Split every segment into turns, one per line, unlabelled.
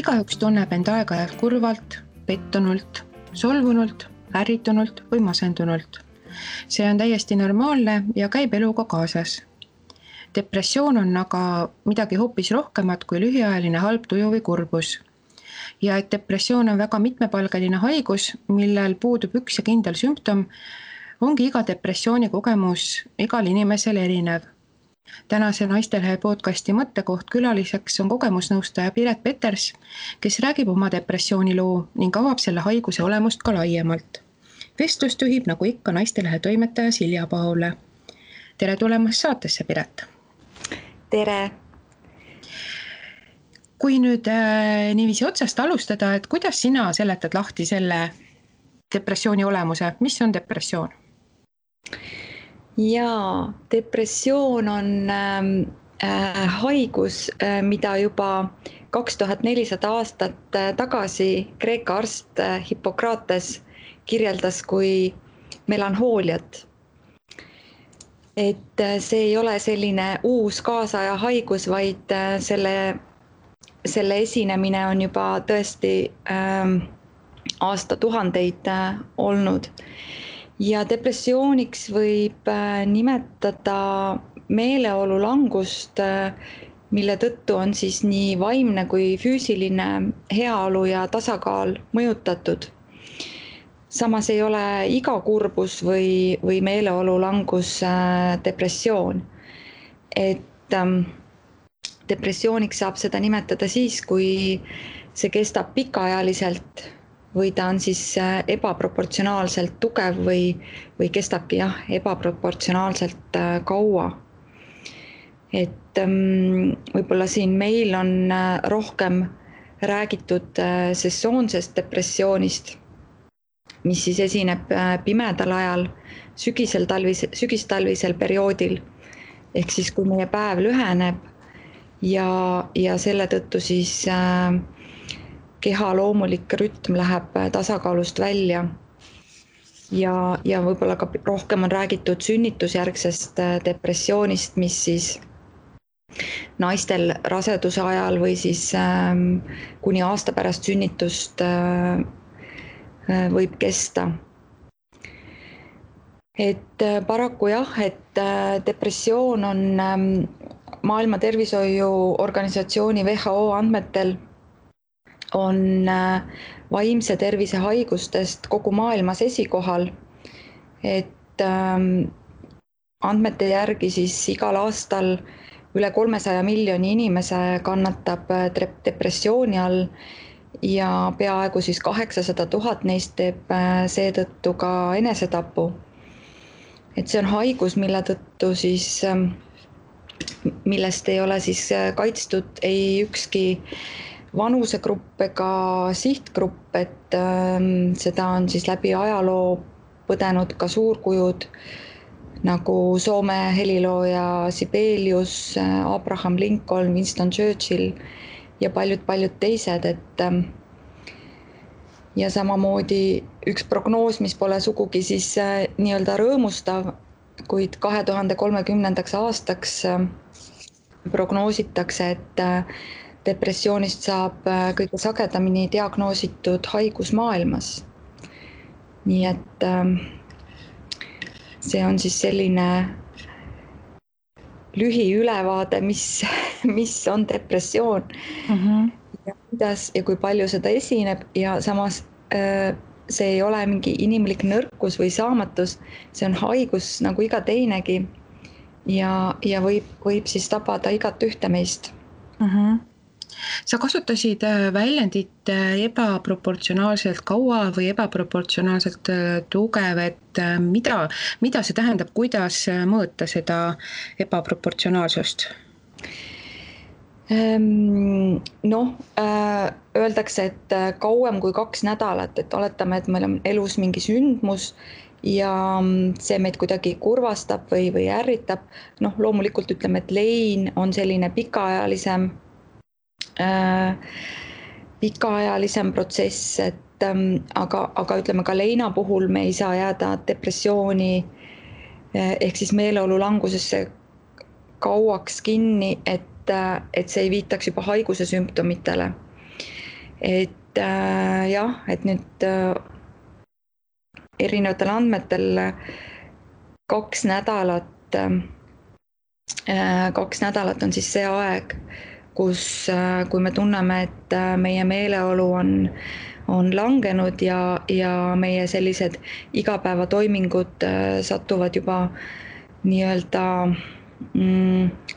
Igaüks tunneb end aeg-ajalt kurvalt, pettunult, solvunult, ärritunult või masendunult. See on täiesti normaalne ja käib eluga kaasas. Depressioon on aga midagi hoopis rohkemat kui lühiajaline halb tuju või kurbus. Ja et depressioon on väga mitmepalgeline haigus, millel puudub üks ja kindel sümptom, ongi iga depressiooni kogemus igal inimesel erinev. Tänase Naistelehe podcasti mõttekoht külaliseks on kogemusnõustaja Piret Peters, kes räägib oma depressiooniloo ning avab selle haiguse olemust ka laiemalt. Vestlust juhib nagu ikka Naistelehe toimetaja Silja Paule. Tere tulemast saatesse, Piret!
Tere!
Kui nüüd niiviisi otsast alustada, et kuidas sina seletad lahti selle depressiooni olemuse? Mis on depressioon?
Jaa, depressioon on haigus, mida juba 2400 aastat tagasi Kreeka arst Hippokrates kirjeldas kui melanhooliat. Et see ei ole selline uus kaasaja haigus, vaid selle esinemine on juba tõesti aastatuhandeid olnud. Ja depressiooniks võib nimetada meeleolu langust, mille tõttu on siis nii vaimne kui füüsiline heaolu ja tasakaal mõjutatud. Samas ei ole iga kurbus või meeleolu langus depressioon. Et depressiooniks saab seda nimetada siis, kui see kestab pikaajaliselt või ta on siis ebaproportsionaalselt tugev või kestabki ebaproportsionaalselt kaua. Et võib-olla siin meil on rohkem räägitud sesoonsest depressioonist, mis siis esineb pimedal ajal, sügistalvisel perioodil, ehk siis kui meie päev lüheneb ja selle tõttu siis keha loomulik rütm läheb tasakaalust välja ja võib-olla ka rohkem on räägitud sünnitusjärgsest depressioonist, mis siis naistel raseduse ajal või siis kuni aasta pärast sünnitust võib kesta. Et paraku et depressioon on Maailma Tervishoiuorganisatsiooni WHO andmetel on vaimse tervise haigustest kogu maailmas esikohal. Et andmete järgi siis igal aastal üle 300 miljoni inimese kannatab depressiooni all ja peaaegu siis 800 000 neist teeb seetõttu ka enesetapu. Et see on haigus, mille tõttu siis, millest ei ole siis kaitstud ei ükski vanusegrupp ega sihtgrupp, et seda on siis läbi ajaloo põdenud ka suurkujud nagu Soome helilooja Sibelius, Abraham Lincoln, Winston Churchill ja paljud teised, et ja samamoodi üks prognoos, mis pole sugugi siis nii-öelda rõõmustav, kuid 2030. aastaks prognoositakse, et depressioonist saab kõige sagedamini diagnoositud haigus maailmas. Nii et see on siis selline lühiülevaade, mis on depressioon ja kuidas ja kui palju seda esineb ja samas see ei ole mingi inimlik nõrkus või saamatus, see on haigus nagu iga teinegi ja võib siis tabada igat ühte meist.
Sa kasutasid väljendit ebaproportsionaalselt kaua või ebaproportsionaalselt tugev, et mida see tähendab, kuidas mõõta seda ebaproportsionaalsust?
Öeldakse, et kauem kui 2 nädalat, et oletame, et meil on elus mingi sündmus ja see meid kuidagi kurvastab või ärritab. Loomulikult ütleme, et lein on selline pikaajalisem protsess, et aga ütleme ka leina puhul me ei saa jääda depressiooni ehk siis meeleolu langusesse kauaks kinni, et see ei viitaks juba haiguse sümptomitele. et jah, et nüüd erinevatel andmetel 2 nädalat on siis see aeg, kui me tunneme, et meie meeleolu on langenud ja meie sellised igapäevatoimingud satuvad juba nii-öelda,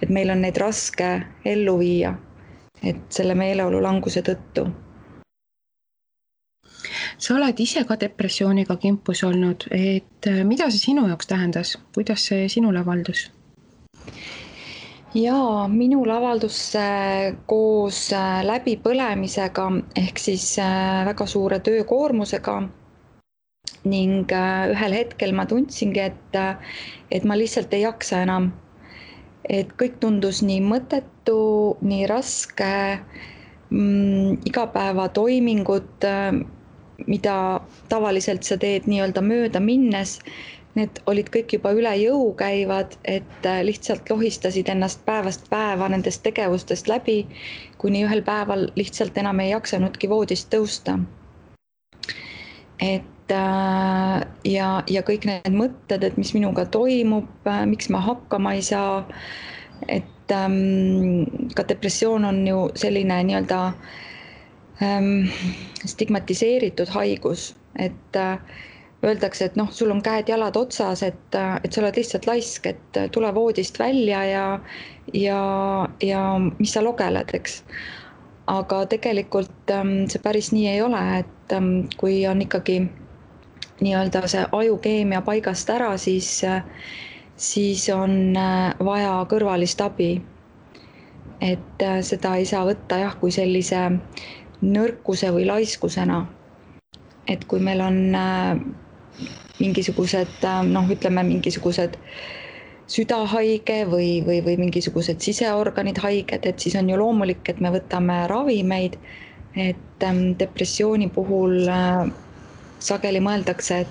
et meil on neid raske ellu viia, et selle meeleolu languse tõttu.
Sa oled ise ka depressiooniga kimpus olnud, et mida see sinu jaoks tähendas? Kuidas see sinule avaldus?
Jaa, minul avaldus koos läbipõlemisega ehk siis väga suure töökoormusega ning ühel hetkel ma tundsingi, et ma lihtsalt ei jaksa enam. Et kõik tundus nii mõttetu, nii raske, igapäevatoimingud, mida tavaliselt sa teed nii-öelda mööda minnes, need olid kõik juba üle jõu käivad, et lihtsalt lohistasid ennast päevast päeva nendest tegevustest läbi, kuni ühel päeval lihtsalt enam ei jaksanudki voodist tõusta. Et ja kõik need mõtted, et mis minuga toimub, miks ma hakkama ei saa, et ka depressioon on ju selline nii-öelda stigmatiseeritud haigus, et öeldakse, et sul on käed-jalad otsas, et sa oled lihtsalt laisk, et tule voodist välja ja mis sa logeled, eks. Aga tegelikult see päris nii ei ole, et kui on ikkagi nii-öelda see ajukeemia paigast ära, siis on vaja kõrvalist abi. Et seda ei saa võtta jah, kui sellise nõrkuse või laiskusena. Et kui meil on mingisugused, mingisugused südahaige või mingisugused siseorganid haiged, et siis on ju loomulik, et me võtame ravimeid, et depressiooni puhul sageli mõeldakse,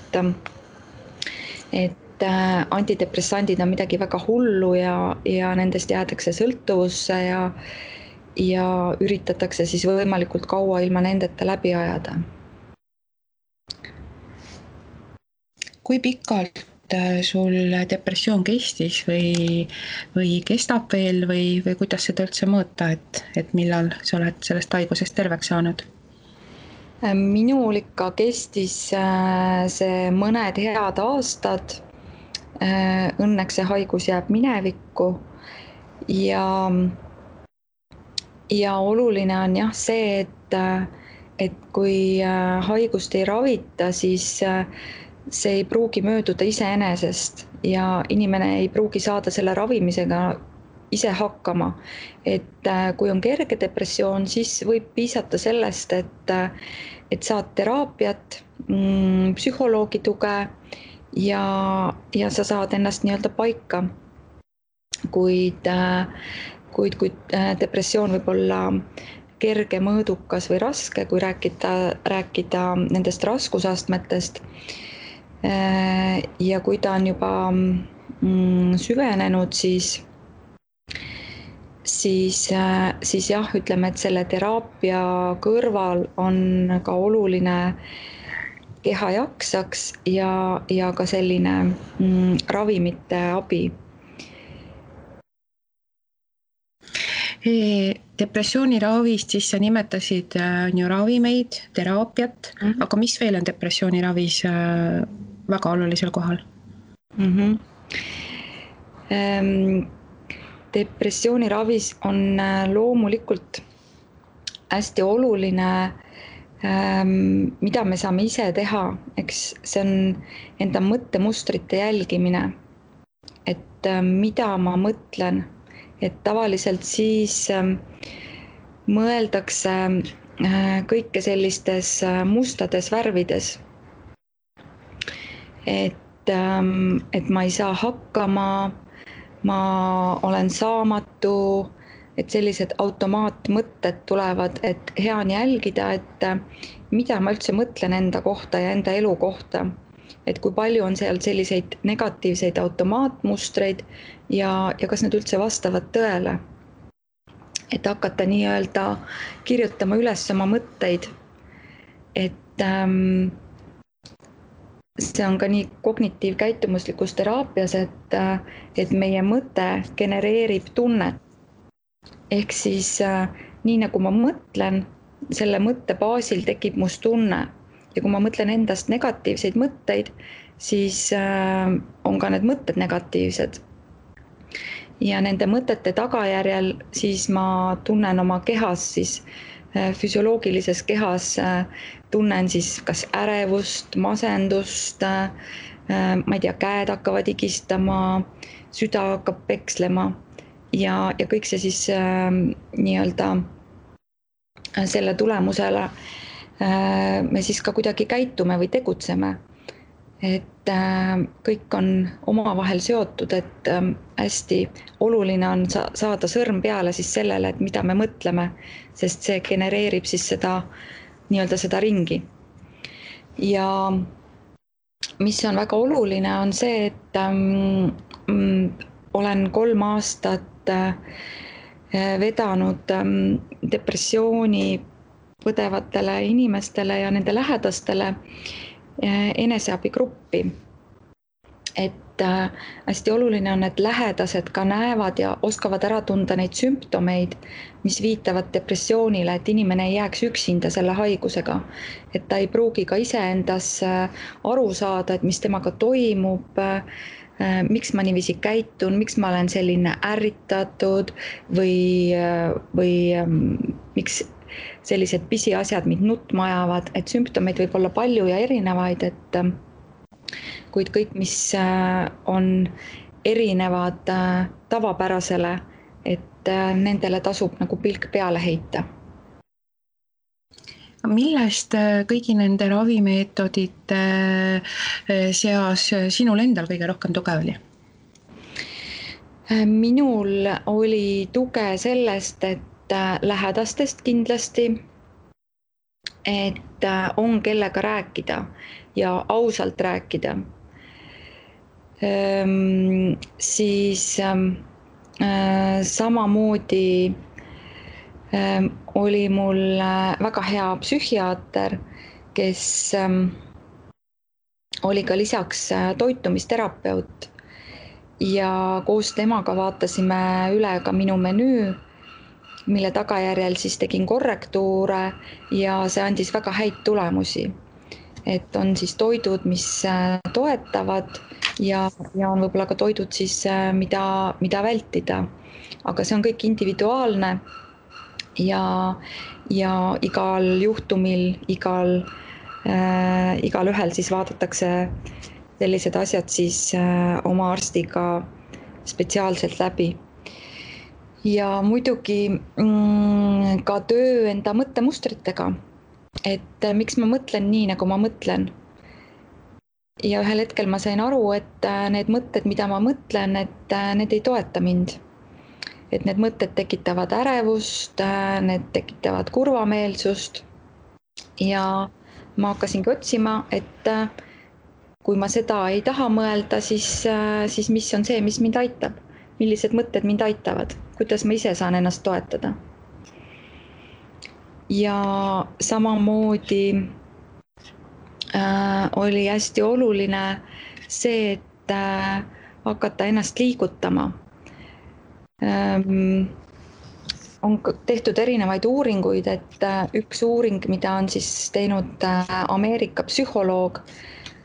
et antidepressandid on midagi väga hullu ja nendest jäädakse sõltuvusse ja üritatakse siis võimalikult kaua ilma nendeta läbi ajada.
Kui pikalt sul depressioon kestis või kestab veel või kuidas seda üldse mõõta, et millal sa oled sellest haigusest terveks saanud?
Minul ikka kestis see mõned head aastad. Õnneks see haigus jääb minevikku ja oluline on jah see, et kui haigust ei ravita, siis see ei pruugi mööduda iseenesest ja inimene ei pruugi saada selle ravimisega ise hakkama. Et kui on kerge depressioon, siis võib piisata sellest, et saad teraapiat, psühholoogi tuge ja sa saad ennast nii-öelda paika. Kuid depressioon võib olla kerge, mõõdukas või raske, kui rääkida nendest raskusastmetest. Ja kui ta on juba süvenenud, siis jah, ütleme, et selle teraapia kõrval on ka oluline keha jaksaks ja ka selline ravimite abi.
Depressiooni ravist siis sa nimetasid ravimeid, teraapiat, aga mis veel on depressiooni ravis väga olulisel kohal?
Depressiooni ravis on loomulikult hästi oluline, mida me saame ise teha, eks see on enda mõttemustrite jälgimine, et mida ma mõtlen. Et tavaliselt siis mõeldakse kõike sellistes mustades värvides. Et ma ei saa hakkama, ma olen saamatu, et sellised automaatmõtted tulevad, et hea on jälgida, et mida ma üldse mõtlen enda kohta ja enda elu kohta. Et kui palju on seal selliseid negatiivseid automaatmustreid ja kas need üldse vastavad tõele. et hakata nii-öelda kirjutama üles oma mõtteid. Et see on ka nii kognitiivkäitumuslikus teraapias, et meie mõte genereerib tunnet. Ehk siis nii nagu ma mõtlen, selle mõtte baasil tekib must tunne. Ja kui ma mõtlen endast negatiivseid mõtteid, siis on ka need mõtted negatiivsed. Ja nende mõtete tagajärjel siis ma tunnen oma kehas, siis füsioloogilises kehas tunnen siis kas ärevust, masendust, ma ei tea, käed hakkavad higistama, süda hakkab pekslema ja kõik see siis nii-öelda selle tulemusele me siis ka kuidagi käitume või tegutseme. Et kõik on omavahel seotud, et hästi oluline on saada sõrm peale siis sellele, et mida me mõtleme, sest see genereerib siis seda nii-öelda seda ringi. Ja mis on väga oluline, on see, et olen 3 aastat vedanud depressiooni põdevatele inimestele ja nende lähedastele eneseabigruppi. Et hästi oluline on, et lähedased ka näevad ja oskavad ära tunda neid sümptomeid, mis viitavad depressioonile, et inimene ei jääks üksinda selle haigusega. Et ta ei pruugi ka iseendas aru saada, et mis temaga toimub, miks ma niiviisi käitun, miks ma olen selline ärritatud või miks sellised pisiasjad mind nutma ajavad, et sümptomeid võib olla palju ja erinevaid, et kuid kõik, mis on erinevad tavapärasele, et nendele tasub nagu pilk peale heita.
Millest kõigi nende ravimeetodite seas sinul endal kõige rohkem tuge oli?
Minul oli tuge sellest, et lähedastest kindlasti, et on kellega rääkida ja ausalt rääkida. Siis samamoodi oli mul väga hea psühhiaater, kes oli ka lisaks toitumisterapeut ja koos temaga vaatasime üle ka minu menüü, mille tagajärjel siis tegin korrektuure ja see andis väga häid tulemusi. Et on siis toidud, mis toetavad ja on võib-olla ka toidud siis, mida vältida. Aga see on kõik individuaalne ja igal juhtumil, igal ühel siis vaadatakse sellised asjad siis oma arstiga spetsiaalselt läbi. Ja muidugi ka töö enda mõttemustritega, et miks ma mõtlen nii, nagu ma mõtlen. Ja ühel hetkel ma sain aru, et need mõtted, mida ma mõtlen, et need ei toeta mind. Et need mõtted tekitavad ärevust, need tekitavad kurvameelsust ja ma hakkasingi otsima, et kui ma seda ei taha mõelda, siis mis on see, mis mind aitab? Millised mõtted mind aitavad? Kuidas ma ise saan ennast toetada? Ja samamoodi oli hästi oluline see, et hakata ennast liigutama. On tehtud erinevaid uuringuid, et üks uuring, mida on siis teinud Ameerika psühholoog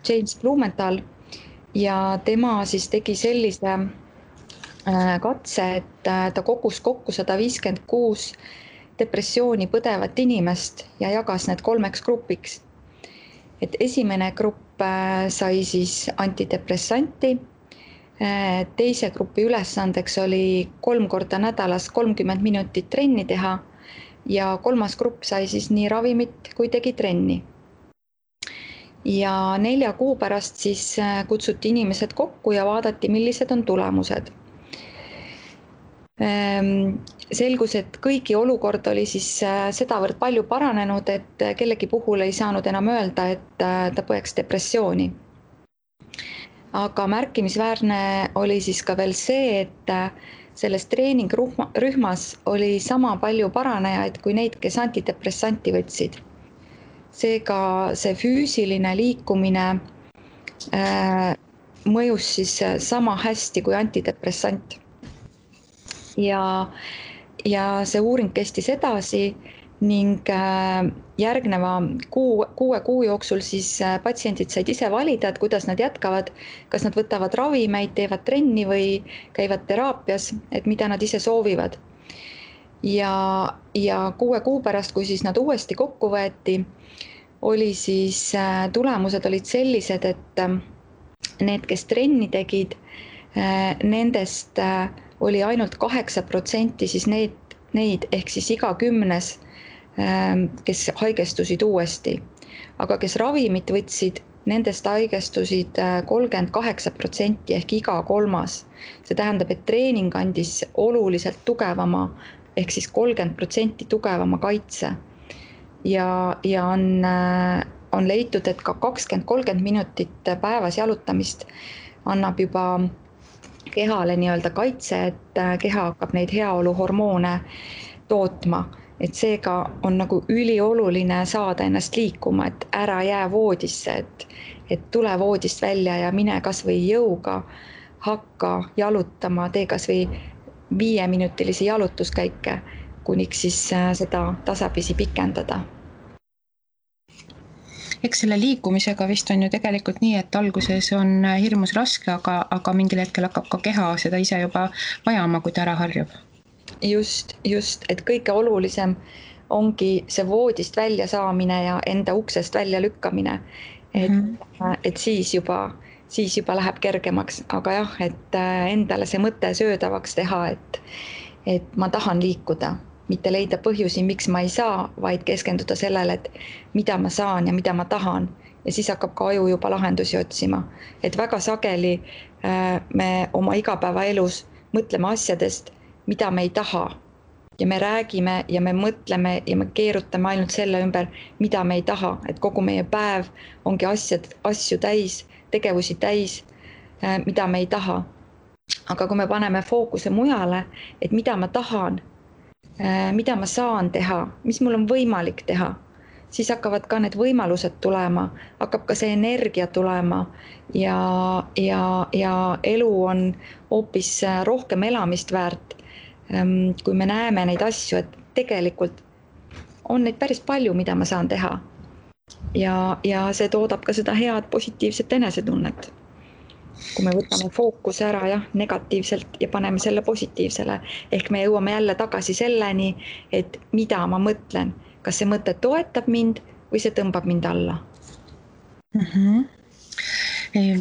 James Blumenthal ja tema siis tegi sellise katse, et ta kogus kokku 156 depressiooni põdevat inimest ja jagas need 3 grupiks. Et esimene grupp sai siis antidepressanti, teise grupi ülesandeks oli 3 korda nädalas 30 minutit trenni teha ja 3. grupp sai siis nii ravimit kui tegi trenni. Ja 4 kuu pärast siis kutsuti inimesed kokku ja vaadati, millised on tulemused. Selgus, et kõigi olukord oli siis sedavõrd palju paranenud, et kellegi puhul ei saanud enam öelda, et ta põeks depressiooni. Aga märkimisväärne oli siis ka veel see, et selles treeningrühmas oli sama palju paranejaid kui neid, kes antidepressanti võtsid. Seega see füüsiline liikumine mõjus siis sama hästi kui antidepressant. Ja see uuring kestis edasi ning järgneva 6 kuu jooksul siis patsiendid said ise valida, et kuidas nad jätkavad, kas nad võtavad ravimeid, teevad trenni või käivad teraapias, et mida nad ise soovivad. Ja 6 kuu pärast, kui siis nad uuesti kokku võeti, oli siis tulemused olid sellised, et need, kes trenni tegid, nendest oli ainult 8% siis neid ehk siis iga 10, kes haigestusid uuesti. Aga kes ravimit võtsid, nendest haigestusid 38% ehk iga 3. See tähendab, et treening andis oluliselt tugevama ehk siis 30% tugevama kaitse. Ja on leitud, et ka 20-30 minutit päevas jalutamist annab juba kehale nii-öelda kaitse, et keha hakkab neid heaoluhormoone tootma. Et seega on nagu ülioluline saada ennast liikuma, et ära jää voodisse, et tule voodist välja ja mine kas või jõuga, hakka jalutama, tee kas või 5-minutilisi jalutuskäike, kuniks siis seda tasapisi pikendada.
Eks selle liikumisega vist on ju tegelikult nii, et alguses on hirmus raske, aga mingil hetkel hakkab ka keha seda ise juba vajama, kui ta ära harjub.
Just, et kõige olulisem ongi see voodist välja saamine ja enda uksest välja lükkamine, et siis juba läheb kergemaks, aga jah, et endale see mõte söödavaks teha, et ma tahan liikuda, mitte leida põhjusi, miks ma ei saa, vaid keskenduda sellele, et mida ma saan ja mida ma tahan. Ja siis hakkab ka aju juba lahendusi otsima. Et väga sageli me oma igapäevaelus mõtleme asjadest, mida me ei taha. Ja me räägime ja me mõtleme ja me keerutame ainult selle ümber, mida me ei taha. Et kogu meie päev ongi asju täis, tegevusi täis, mida me ei taha. Aga kui me paneme fookuse mujale, et mida ma tahan, mida ma saan teha, mis mul on võimalik teha, siis hakkavad ka need võimalused tulema, hakkab ka see energia tulema ja elu on hoopis rohkem elamist väärt, kui me näeme neid asju, et tegelikult on neid päris palju, mida ma saan teha. Ja see toodab ka seda head positiivset enesetunnet. Kui me võtame fookuse ära negatiivselt ja paneme selle positiivsele, ehk me jõuame jälle tagasi selleni, et mida ma mõtlen, kas see mõte toetab mind või see tõmbab mind alla.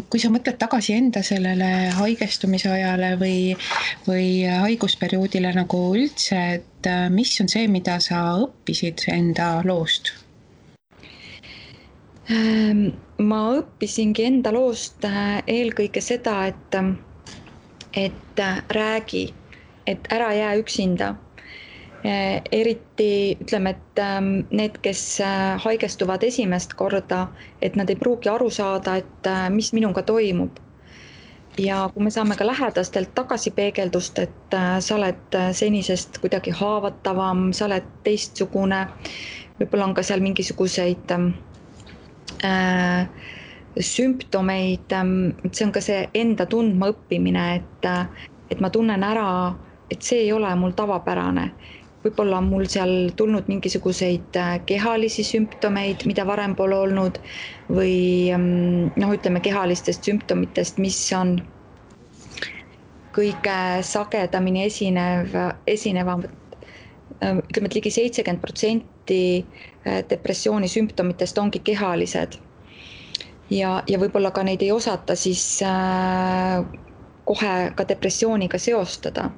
Kui sa mõtled tagasi enda sellele haigestumise ajale või haigusperioodile nagu üldse, et mis on see, mida sa õppisid enda loost?
Ma õppisingi enda loost eelkõige seda, et räägi, et ära jää üksinda. Eriti ütleme, et need, kes haigestuvad esimest korda, et nad ei pruugi aru saada, et mis minuga toimub. Ja kui me saame ka lähedastelt tagasipeegeldust, et sa oled senisest kuidagi haavatavam, sa oled teistsugune, võib-olla on ka seal mingisuguseid sümptomeid, see on ka see enda tundma õppimine, et ma tunnen ära, et see ei ole mul tavapärane. Võib-olla on mul seal tulnud mingisuguseid kehalisi sümptomeid, mida varem pole olnud, või ütleme kehalistest sümptomitest, mis on kõige sagedamini esinevad. Ütleme, et ligi 70% depressiooni sümptomitest ongi kehalised ja võib-olla ka neid ei osata siis kohe ka depressiooniga seostada.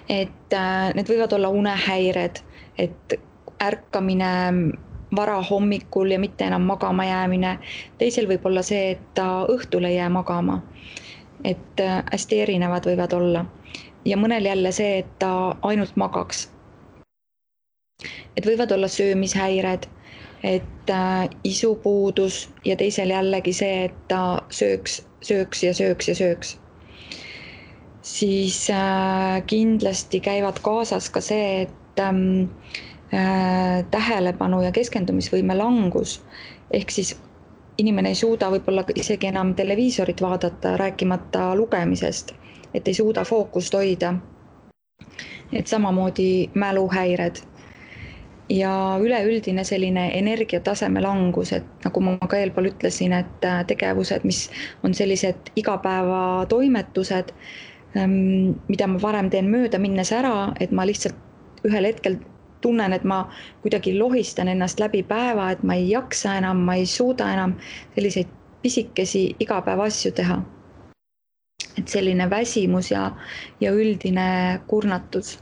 Et need võivad olla unehäired, et ärkamine vara hommikul ja mitte enam magama jäämine. Teisel võib olla see, et ta õhtul ei jää magama, et hästi erinevad võivad olla. Ja mõnel jälle see, et ta ainult magaks. Et võivad olla söömishäired, et isupuudus ja teisel jällegi see, et ta sööks. siis kindlasti käivad kaasas ka see, et tähelepanu ja keskendumisvõime langus, ehk siis inimene ei suuda võib-olla isegi enam televiisorit vaadata, rääkimata lugemisest, et ei suuda fookust hoida. Et samamoodi mäluhäired ja üleüldine selline energiataseme langus, et nagu ma ka eelpool ütlesin, et tegevused, mis on sellised igapäevatoimetused, mida ma varem teen mööda minnes ära, et ma lihtsalt ühel hetkel tunnen, et ma kuidagi lohistan ennast läbi päeva, et ma ei jaksa enam, ma ei suuda enam selliseid pisikesi igapäevaasju teha. Et selline väsimus ja üldine kurnatus.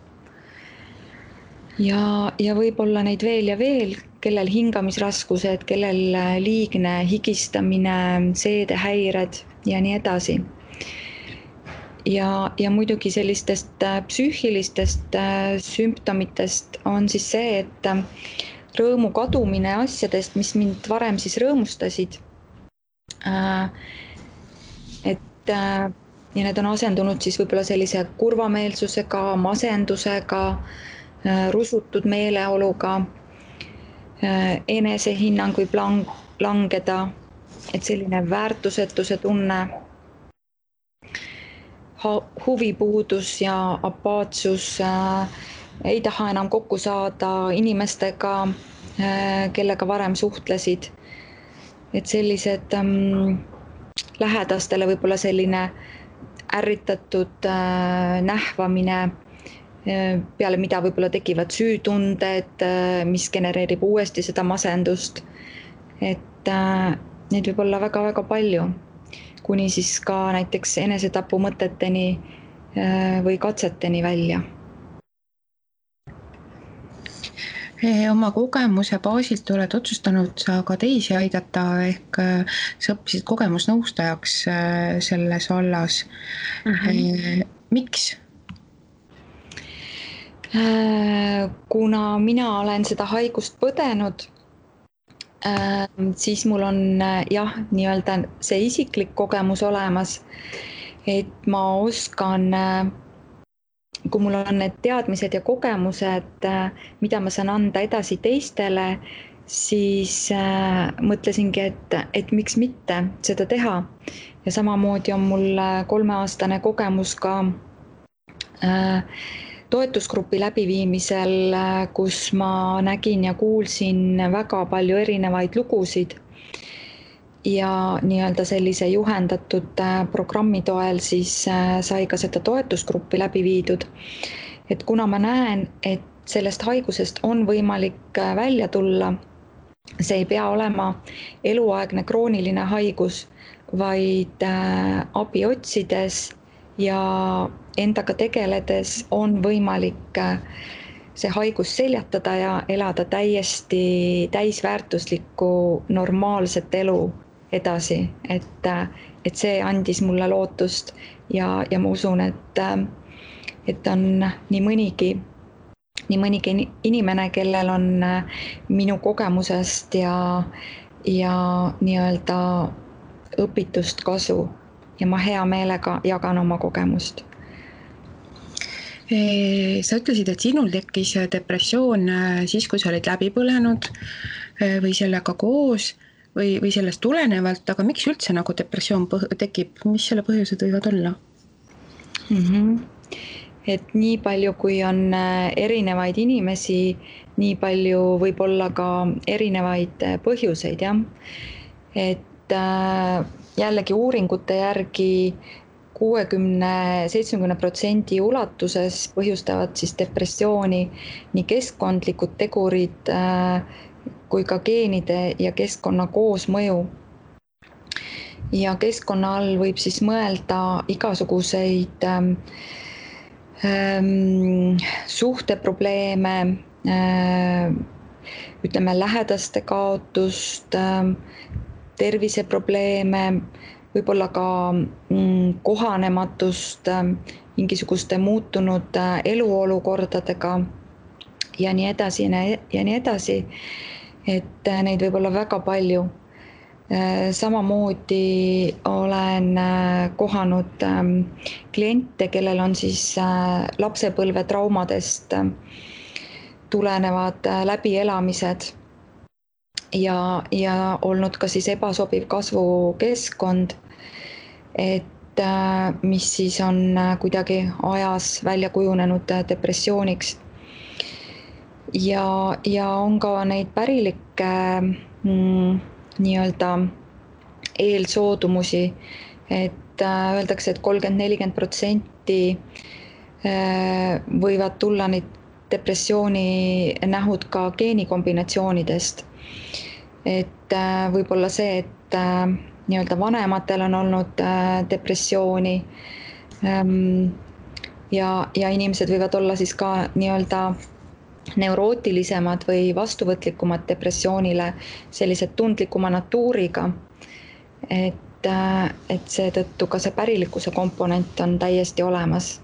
Ja võib-olla neid veel ja veel, kellel hingamisraskused, kellel liigne higistamine, seedehäired ja nii edasi. Ja muidugi sellistest psüühilistest sümptomitest on siis see, et rõõmu kadumine asjadest, mis mind varem siis rõõmustasid, ja need on asendunud siis võib-olla sellise kurvameelsusega, masendusega, rusutud meeleoluga, enesehinnang võib langeda, et selline väärtusetuse tunne, huvipuudus ja apaatsus, ei taha enam kokku saada inimestega, kellega varem suhtlesid. Et sellised lähedastele võib-olla selline ärritatud nähvamine, peale mida võib-olla tekivad süütunded, mis genereerib uuesti seda masendust. Et neid võib olla väga-väga palju, kuni siis ka näiteks enesetapu mõteteni või katseteni välja.
Oma kogemuse baasilt oled otsustanud sa ka teisi aidata, ehk sa õppisid kogemusnõustajaks selles vallas. Miks?
Kuna mina olen seda haigust põdenud, siis mul on nii-öelda see isiklik kogemus olemas, et ma oskan, kui mul on need teadmised ja kogemused, mida ma saan anda edasi teistele, siis mõtlesingi, et miks mitte seda teha. Ja samamoodi on mul 3-aastane kogemus ka toetusgrupi läbiviimisel, kus ma nägin ja kuulsin väga palju erinevaid lugusid ja nii-öelda sellise juhendatud programmi toel siis sai ka seda toetusgruppi läbi viidud. Et kuna ma näen, et sellest haigusest on võimalik välja tulla, see ei pea olema eluaegne krooniline haigus, vaid abi otsides ja endaga tegeledes on võimalik see haigus seljatada ja elada täiesti täisväärtuslikku normaalset elu edasi, et see andis mulle lootust ja ma usun, et on nii mõnigi inimene, kellel on minu kogemusest ja nii-öelda õpitust kasu ja ma hea meelega jagan oma kogemust.
Sa ütlesid, et sinul tekkis depressioon siis, kui sa olid läbi põlenud või sellega koos või sellest tulenevalt, aga miks üldse nagu depressioon tekib, mis selle põhjused võivad olla?
Et nii palju, kui on erinevaid inimesi, nii palju võib olla ka erinevaid põhjuseid, jah. Et jällegi uuringute järgi 60-70% ulatuses põhjustavad siis depressiooni nii keskkondlikud tegurid kui ka geenide ja keskkonna koosmõju. Ja keskkonna all võib siis mõelda igasuguseid suhteprobleeme, ütleme lähedaste kaotust, terviseprobleeme, võib-olla ka kohanematust mingisuguste muutunud eluolukordadega ja nii edasi ja nii edasi. Et neid võib olla väga palju. Samamoodi olen kohanud kliente, kellel on siis lapsepõlve traumadest tulenevad läbielamised ja olnud ka siis ebasobiv kasvukeskkond, et mis siis on kuidagi ajas välja kujunenud depressiooniks. Ja on ka neid pärilikke nii-öelda eelsoodumusi, et öeldakse, et 30-40% võivad tulla neid depressiooni nähud ka geenikombinatsioonidest. Et võib-olla see, et nii-öelda vanematel on olnud depressiooni ja inimesed võivad olla siis ka nii-öelda neurootilisemad või vastuvõtlikumad depressioonile, sellised tundlikuma natuuriga, et seetõttu ka see pärilikkuse komponent on täiesti olemas.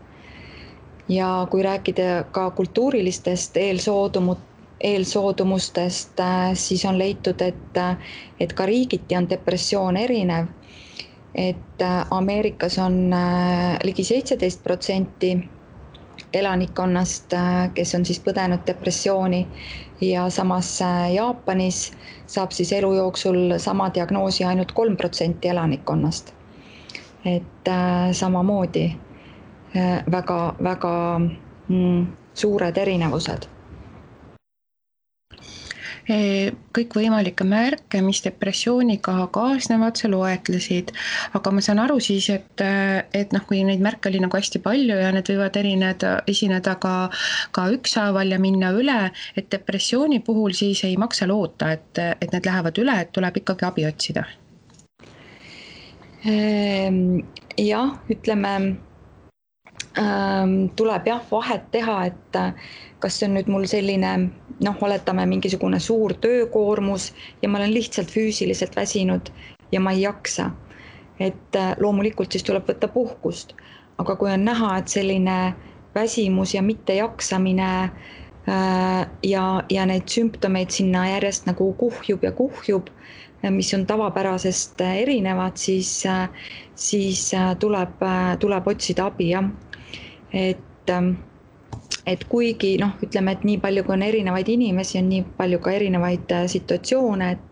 Ja kui rääkida ka kultuurilistest eelsoodumustest, siis on leitud, et ka riigiti on depressioon erinev, et Ameerikas on ligi 17% elanikkonnast, kes on siis põdenud depressiooni ja samas Jaapanis saab siis elu jooksul sama diagnoosi ainult 3% elanikkonnast. Et samamoodi väga suured erinevused.
Kõikvõimalikke märke, mis depressiooniga kaasnevad, sa loetlesid, aga ma saan aru siis, et kui neid märke oli nagu hästi palju ja need võivad esineda ka ükshaaval ja minna üle, et depressiooni puhul siis ei maksa loota, et need lähevad üle, et tuleb ikkagi abi otsida.
Jah, ütleme, tuleb vahet teha, et kas see on nüüd mul selline, oletame mingisugune suur töökoormus ja ma olen lihtsalt füüsiliselt väsinud ja ma ei jaksa. Et loomulikult siis tuleb võtta puhkust, aga kui on näha, et selline väsimus ja mittejaksamine ja neid sümptomeid sinna järjest nagu kuhjub, mis on tavapärasest erinevad, siis tuleb otsida abi, jah. Et kuigi ütleme, et nii palju kui on erinevaid inimesi, on nii palju ka erinevaid situatsioone, et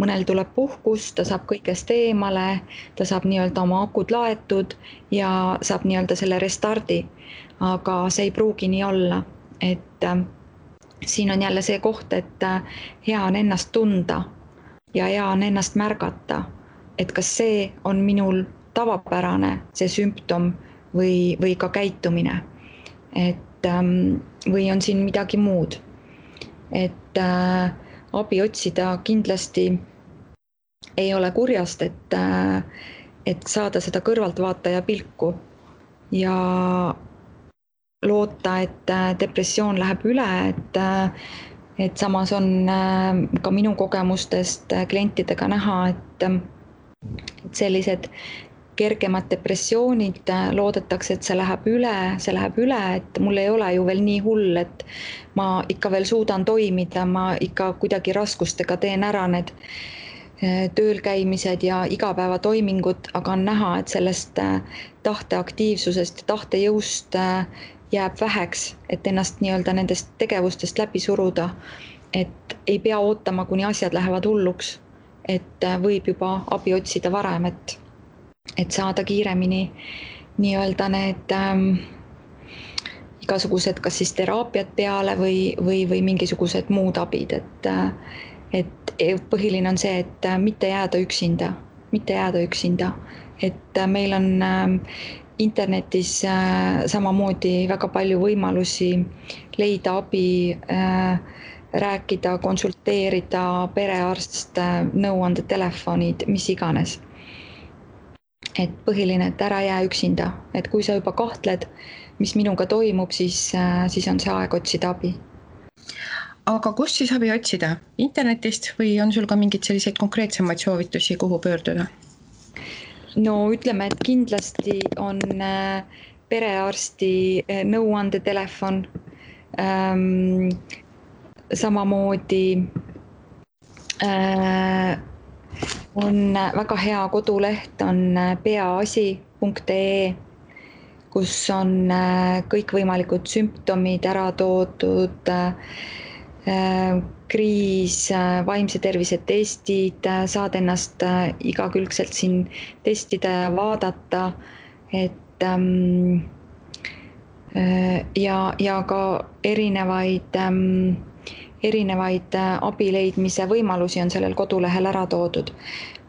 mõnel tuleb puhkus, ta saab kõigest eemale, ta saab nii-öelda oma akud laetud ja saab nii-öelda selle restardi, aga see ei pruugi nii olla, et siin on jälle see koht, et hea on ennast tunda ja hea on ennast märgata, et kas see on minul tavapärane, see sümptom või ka käitumine. Et või on siin midagi muud, et abi otsida kindlasti ei ole kurjast, et saada seda kõrvaltvaataja pilku ja loota, et depressioon läheb üle, et samas on ka minu kogemustest klientidega näha, et sellised kergemad depressioonid loodetakse, et see läheb üle, et mul ei ole ju veel nii hull, et ma ikka veel suudan toimida, ma ikka kuidagi raskustega teen ära need tööl käimised ja igapäevatoimingud, aga on näha, et sellest tahteaktiivsusest ja tahtejõust jääb väheks, et ennast nii-öelda nendest tegevustest läbi suruda, et ei pea ootama, kuni asjad lähevad hulluks, et võib juba abi otsida varem, et saada kiiremini nii-öelda need igasugused kas siis teraapiad peale või mingisugused muud abid, et põhiline on see, et mitte jääda üksinda, et meil on internetis samamoodi väga palju võimalusi leida abi, rääkida, konsulteerida, perearst, nõuandetelefonid, mis iganes. Et põhiline, et ära jää üksinda, et kui sa juba kahtled, mis minuga toimub, siis on see aeg otsida abi.
Aga kust siis abi otsida? Internetist või on sul ka mingid selliseid konkreetsemaid soovitusi, kuhu pöörduda?
No ütleme, et kindlasti on perearsti nõuandetelefon, samamoodi on väga hea koduleht, on peaasi.ee, kus on kõikvõimalikud sümptomid ära toodud, kriis, vaimse tervise testid, saad ennast igakülgselt siin testida ja vaadata, et ja ka erinevaid abi leidmise võimalusi on sellel kodulehel ära toodud.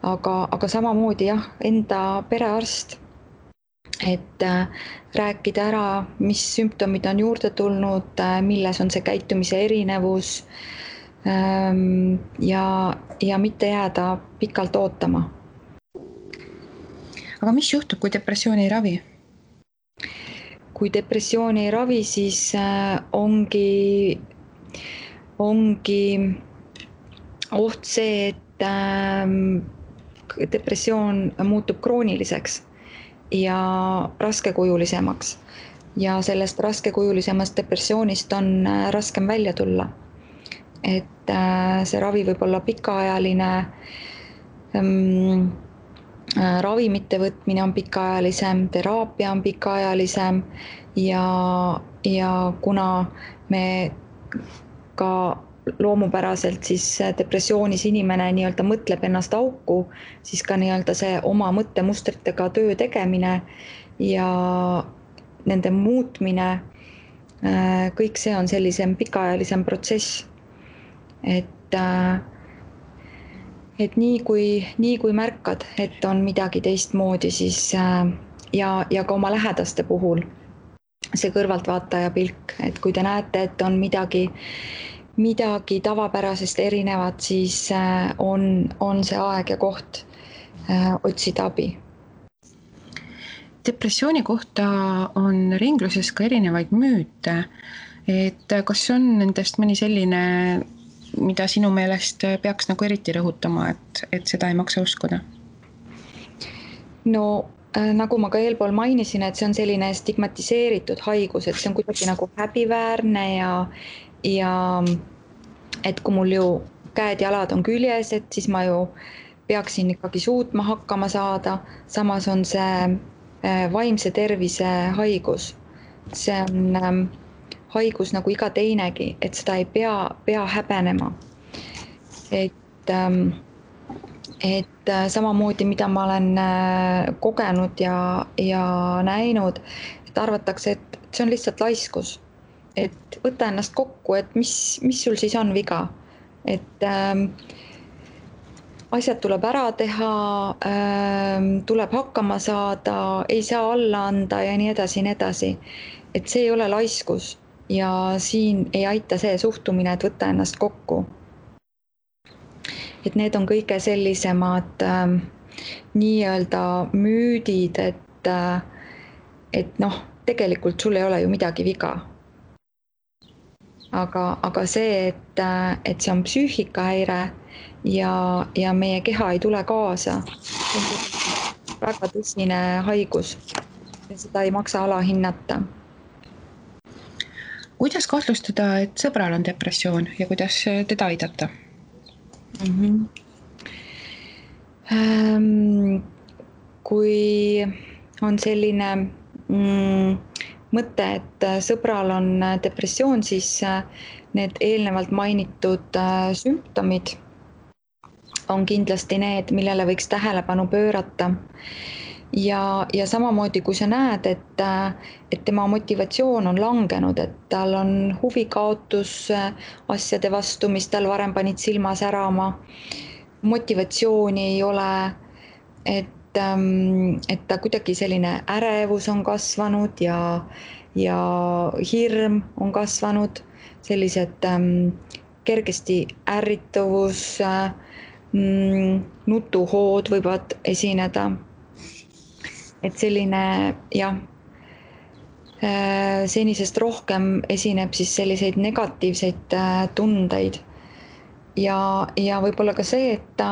Aga samamoodi jah, enda perearst, et rääkida ära, mis sümptomid on juurde tulnud, milles on see käitumise erinevus ja mitte jääda pikalt ootama.
Aga mis juhtub, kui depressiooni ei ravi?
Kui depressiooni ei ravi, siis ongi oht see, et depressioon muutub krooniliseks ja raskekujulisemaks. Ja sellest raskekujulisemast depressioonist on raskem välja tulla. Et see ravi võib olla pikaajaline, ravimite võtmine on pikaajalisem, teraapia on pikaajalisem ja kuna me ka loomupäraselt siis depressioonis inimene nii-öelda mõtleb ennast auku, siis ka nii-öelda see oma mõttemustritega töö tegemine ja nende muutmine, kõik see on sellisem pikaajalisem protsess. Et nii kui märkad, et on midagi teistmoodi, siis ja ka oma lähedaste puhul see kõrvaltvaataja pilk, et kui te näete, et on midagi tavapärasest erinevat, siis on see aeg ja koht otsida abi.
Depressiooni kohta on ringluses ka erinevaid müüte, et kas on nendest mõni selline, mida sinu meelest peaks nagu eriti rõhutama, et seda ei maksa uskuda?
No nagu ma ka eelpool mainisin, et see on selline stigmatiseeritud haigus, et see on kuidagi nagu häbiväärne ja et kui mul ju käed-jalad on küljes, et siis ma ju peaksin ikkagi suutma hakkama saada. Samas on see vaimse tervise haigus. See on haigus nagu iga teinegi, et seda ei pea häbenema. Et samamoodi, mida ma olen kogenud ja näinud, et arvatakse, et see on lihtsalt laiskus. Et võta ennast kokku, et mis sul siis on viga. Et asjad tuleb ära teha, tuleb hakkama saada, ei saa alla anda ja nii edasi, nii edasi. Et see ei ole laiskus ja siin ei aita see suhtumine, et võtta ennast kokku. Et need on kõige sellisemad nii-öelda müüdid, et noh, tegelikult sul ei ole ju midagi viga. Aga see, et see on psüühikahäire ja meie keha ei tule kaasa, on väga tõsine haigus ja seda ei maksa alahinnata.
Kuidas kahtlustada, et sõbral on depressioon ja kuidas teda aidata?
Kui on selline mõte, et sõbral on depressioon, siis need eelnevalt mainitud sümptomid on kindlasti need, millele võiks tähelepanu pöörata. Ja samamoodi, kui sa näed, et tema motivatsioon on langenud, et tal on huvikaotus asjade vastu, mis tal varem panid silma särama, motivatsiooni ei ole, et ta kuidagi selline ärevus on kasvanud ja hirm on kasvanud, sellised kergesti ärrituvus, nutuhood võivad esineda. Et selline jah, senisest rohkem esineb siis selliseid negatiivseid tundeid ja võib-olla ka see, et ta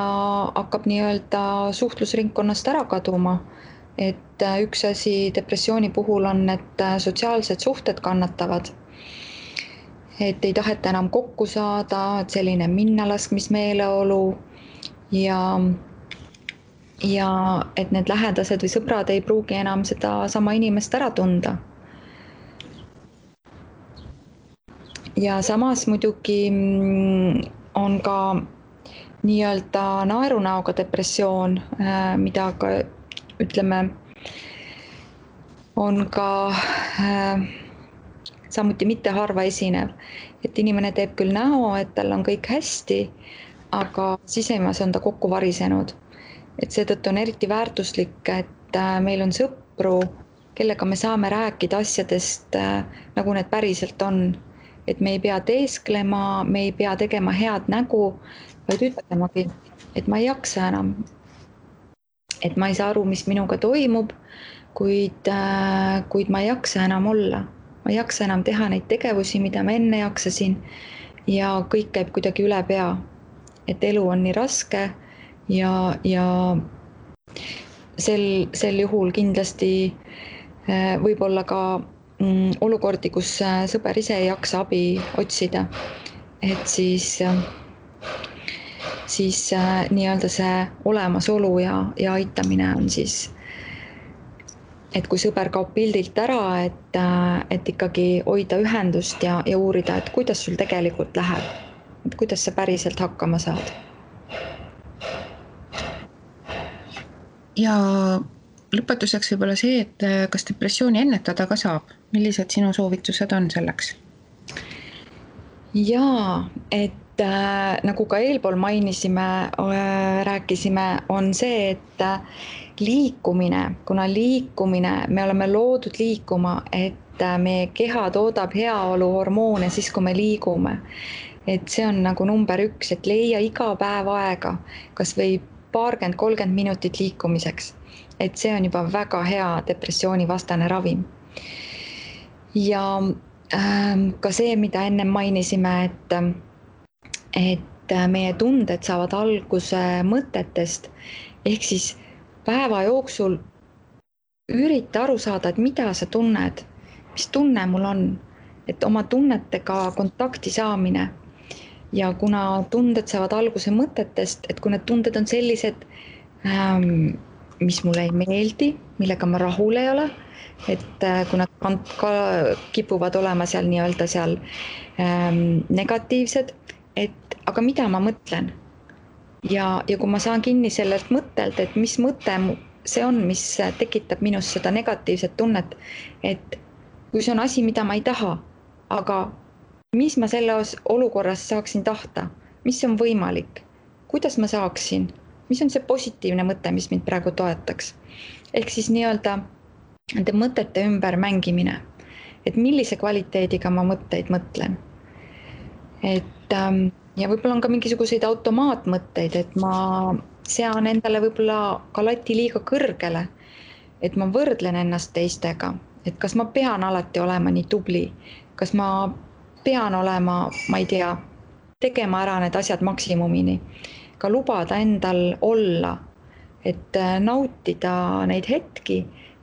hakkab nii-öelda suhtlusringkonnast ära kaduma. Et üks asi depressiooni puhul on, et sotsiaalsed suhted kannatavad. Et ei taheta enam kokku saada, et selline minnalaskmismeeleolu ja et need lähedased või sõbrad ei pruugi enam seda sama inimest ära tunda. Ja samas muidugi on ka nii-öelda naerunäoga depressioon, mida ka ütleme, on ka samuti mitte harva esinev, et inimene teeb küll näo, et tal on kõik hästi, aga sisemas on ta kokku varisenud. Et seetõttu on eriti väärtuslik, et meil on sõpru, kellega me saame rääkida asjadest, nagu need päriselt on. Et me ei pea teesklema, me ei pea tegema head nägu, vaid ütlemagi, et ma ei jaksa enam. Et ma ei saa aru, mis minuga toimub, kuid ma ei jaksa enam olla. Ma ei jaksa enam teha neid tegevusi, mida ma enne jaksasin ja kõik käib kuidagi üle pea. Et elu on nii raske ja sel juhul kindlasti võib olla ka olukordi, kus sõber ise ei jaksa abi otsida. Et siis nii-öelda see olemasolu ja aitamine on siis, et kui sõber kaob pildilt ära, et ikkagi hoida ühendust ja uurida, et kuidas sul tegelikult läheb, et kuidas sa päriselt hakkama saad.
Ja lõpetuseks võib olla see, et kas depressiooni ennetada ka saab? Millised sinu soovitused on selleks?
Jaa, et nagu ka eelpool mainisime, rääkisime, on see, et liikumine, kuna me oleme loodud liikuma, et meie keha toodab heaoluhormoone siis, kui me liigume. Et see on nagu number 1, et leia iga päev aega, kas või 20-30 minutit liikumiseks. Et see on juba väga hea depressioonivastane ravim. Ja ka see, mida enne mainisime, et meie tunded saavad alguse mõtetest, ehk siis päeva jooksul ürita aru saada, et mida sa tunned, mis tunne mul on, et oma tunnetega kontakti saamine. Ja kuna tunded saavad alguse mõtetest, et kui need tunded on sellised, mis mulle ei meeldi, millega ma rahul ei ole, et kui nad ka kipuvad olema seal nii-öelda seal negatiivsed, et aga mida ma mõtlen? Ja kui ma saan kinni sellelt mõttelt, et mis mõte see on, mis tekitab minus seda negatiivset tunnet, et kui see on asi, mida ma ei taha, aga mis ma selles olukorras saaksin tahta, mis on võimalik, kuidas ma saaksin, mis on see positiivne mõte, mis mind praegu toetaks. Ehk siis nii-öelda nende mõtete ümber mängimine, et millise kvaliteediga ma mõtteid mõtlen. Et ja võib-olla on ka mingisuguseid automaatmõtteid, et ma sean endale võib-olla ka lati liiga kõrgele, et ma võrdlen ennast teistega, et kas ma pean alati olema nii tubli, kas ma pean olema, ma ei tea, tegema ära need asjad maksimumini, ka lubada endal olla, et nautida neid hetki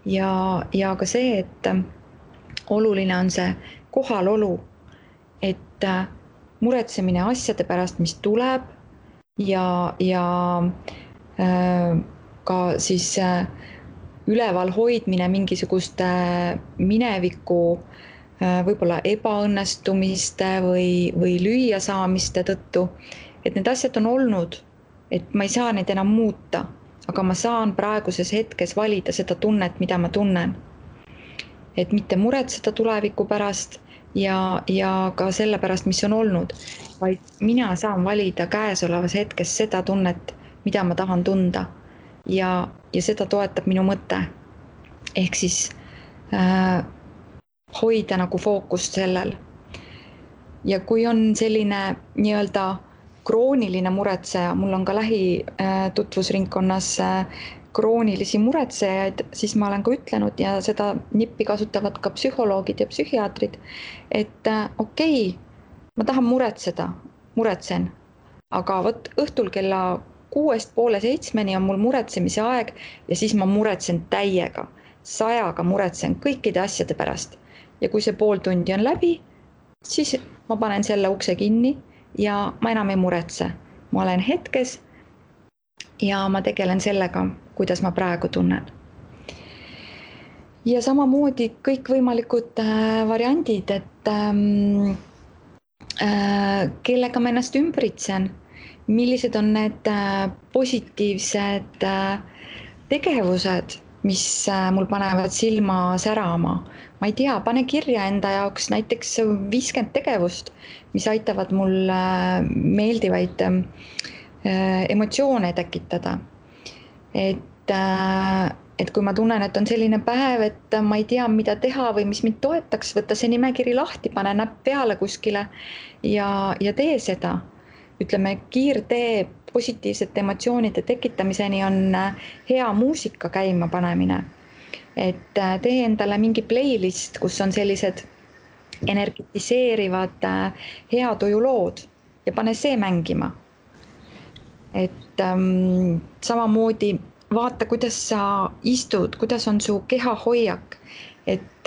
ja ka see, et oluline on see kohalolu, et muretsemine asjade pärast, mis tuleb ja ka siis üleval hoidmine mingisuguste mineviku võib-olla ebaõnnestumiste või lüüasaamiste tõttu, et need asjad on olnud, et ma ei saa neid enam muuta, aga ma saan praeguses hetkes valida seda tunnet, mida ma tunnen. Et mitte muretseda tuleviku pärast ja ka selle pärast, mis on olnud, vaid mina saan valida käesolevas hetkes seda tunnet, mida ma tahan tunda ja seda toetab minu mõte. Ehk siis hoida nagu fookust sellel. Ja kui on selline nii-öelda krooniline muretseja, mul on ka lähitutvusringkonnas kroonilisi muretsejaid, siis ma olen ka ütlenud ja seda nippi kasutavad ka psühholoogid ja psühhiaatrid, et okei, ma tahan muretsen, aga võt õhtul kella 6:30 on mul muretsemise aeg ja siis ma muretsen täiega, 100-ga muretsen kõikide asjade pärast. Ja kui see pool tundi on läbi, siis ma panen selle ukse kinni ja ma enam ei muretse. Ma olen hetkes ja ma tegelen sellega, kuidas ma praegu tunnen. Ja samamoodi kõikvõimalikud variandid, et kellega ma ennast ümbritsen, millised on need positiivsed tegevused, mis mul panevad silma särama. Ma ei tea, pane kirja enda jaoks näiteks 50 tegevust, mis aitavad mul meeldivaid emotsioone tekitada. Et kui ma tunnen, et on selline päev, et ma ei tea, mida teha või mis mind toetaks, võtta see nimekiri lahti, pane näpp peale kuskile ja tee seda. Ütleme, kiirtee positiivsete emotsioonide tekitamiseni on hea muusika käima panemine. Et tee endale mingi playlist, kus on sellised energetiseerivad heatujulood ja pane see mängima. Et samamoodi vaata, kuidas sa istud, kuidas on su kehahoiak, et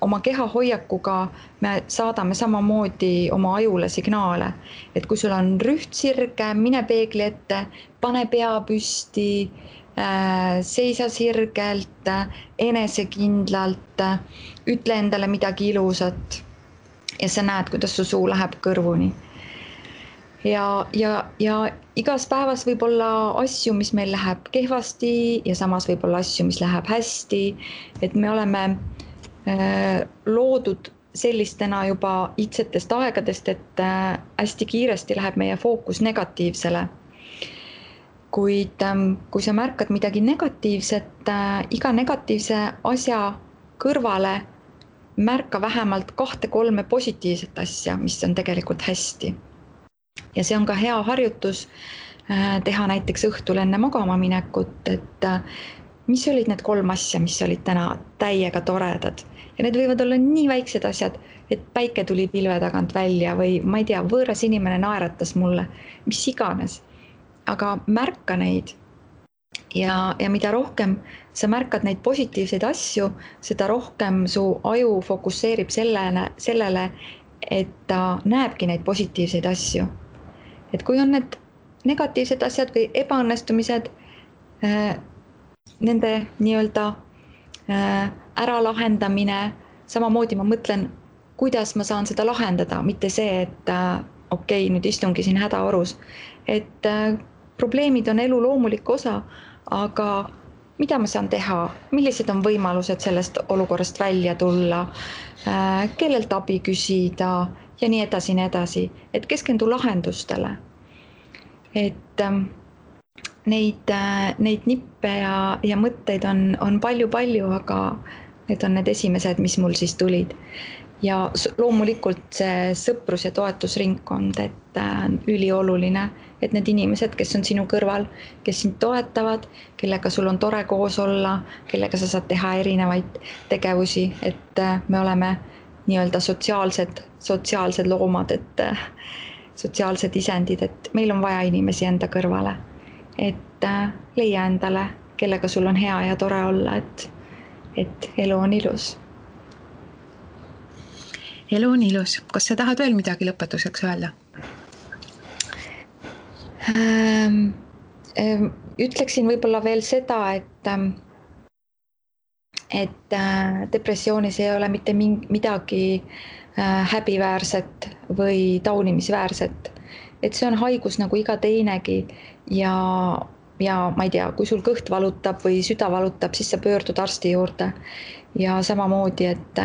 oma kehahoiakuga me saadame samamoodi oma ajule signaale, et kui sul on rühtsirge, mine peegli ette, pane pea püsti, seisa sirgelt, enesekindlalt, ütle endale midagi ilusat ja sa näed, kuidas su suu läheb kõrvuni. Ja igas päevas võib olla asju, mis meil läheb kehvasti ja samas võib olla asju, mis läheb hästi, et me oleme loodud sellistena juba iidsetest aegadest, et hästi kiiresti läheb meie fookus negatiivsele. Kuid kui sa märkad midagi negatiivset, iga negatiivse asja kõrvale märka vähemalt 2-3 positiivset asja, mis on tegelikult hästi. Ja see on ka hea harjutus teha näiteks õhtul enne magama minekut, et mis olid need 3 asja, mis olid täna täiega toredad. Ja need võivad olla nii väiksed asjad, et päike tuli pilve tagant välja või ma ei tea, võõras inimene naeratas mulle, mis iganes. Aga märka neid ja mida rohkem sa märkad neid positiivseid asju, seda rohkem su aju fokusseerib sellele, et ta näebki neid positiivseid asju. Et kui on need negatiivsed asjad või ebaõnnestumised, nende nii-öelda äralahendamine, samamoodi ma mõtlen, kuidas ma saan seda lahendada, mitte see, et okei, nüüd istungi siin hädaorus. Et probleemid on elu loomulik osa, aga mida ma saan teha, millised on võimalused sellest olukorrast välja tulla, kellelt abi küsida ja nii edasi, et keskendu lahendustele. Et neid nippe ja mõtteid on palju, aga need on need esimesed, mis mul siis tulid. Ja loomulikult see sõprus- ja toetusringkond, et ülioluline, et need inimesed, kes on sinu kõrval, kes sind toetavad, kellega sul on tore koos olla, kellega sa saad teha erinevaid tegevusi, et me oleme nii-öelda sotsiaalsed loomad, et sotsiaalsed isendid, et meil on vaja inimesi enda kõrvale, et leia endale, kellega sul on hea ja tore olla, et elu on ilus.
Elu on ilus. Kas sa tahad veel midagi lõpetuseks öelda?
Ütleksin võib-olla veel seda, et depressioonis ei ole mitte midagi häbiväärset või taunimisväärset. Et see on haigus nagu iga teinegi ja ma ei tea, kui sul kõht valutab või süda valutab, siis sa pöördud arsti juurde. Ja samamoodi, et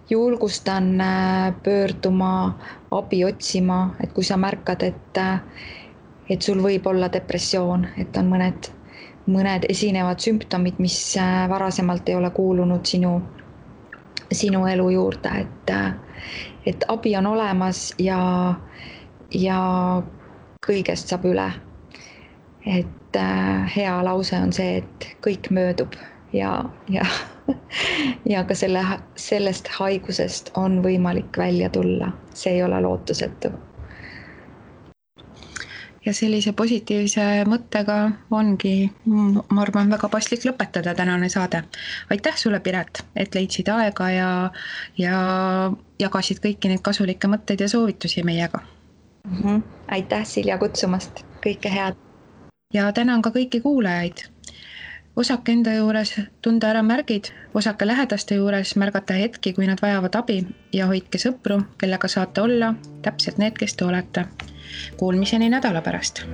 julgustan pöörduma, abi otsima, et kui sa märkad, et sul võib olla depressioon, et on mõned esinevad sümptomid, mis varasemalt ei ole kuulunud sinu elu juurde, et abi on olemas ja kõigest saab üle. Et hea lause on see, et kõik möödub ja ka sellest haigusest on võimalik välja tulla. See ei ole lootusetu.
Ja sellise positiivse mõttega ongi, ma arvan, väga paslik lõpetada tänane saade. Aitäh sulle, Piret, et leidsid aega ja jagasid kõiki neid kasulikke mõtteid ja soovitusi meiega.
Aitäh, Silja, kutsumast. Kõike head.
ja tänan ka kõiki kuulajaid. Osake enda juures tunda ära märgid, osake lähedaste juures märgata hetki, kui nad vajavad abi ja hoidke sõpru, kellega saate olla täpselt need, kes te olete. Kuulmiseni nädala pärast.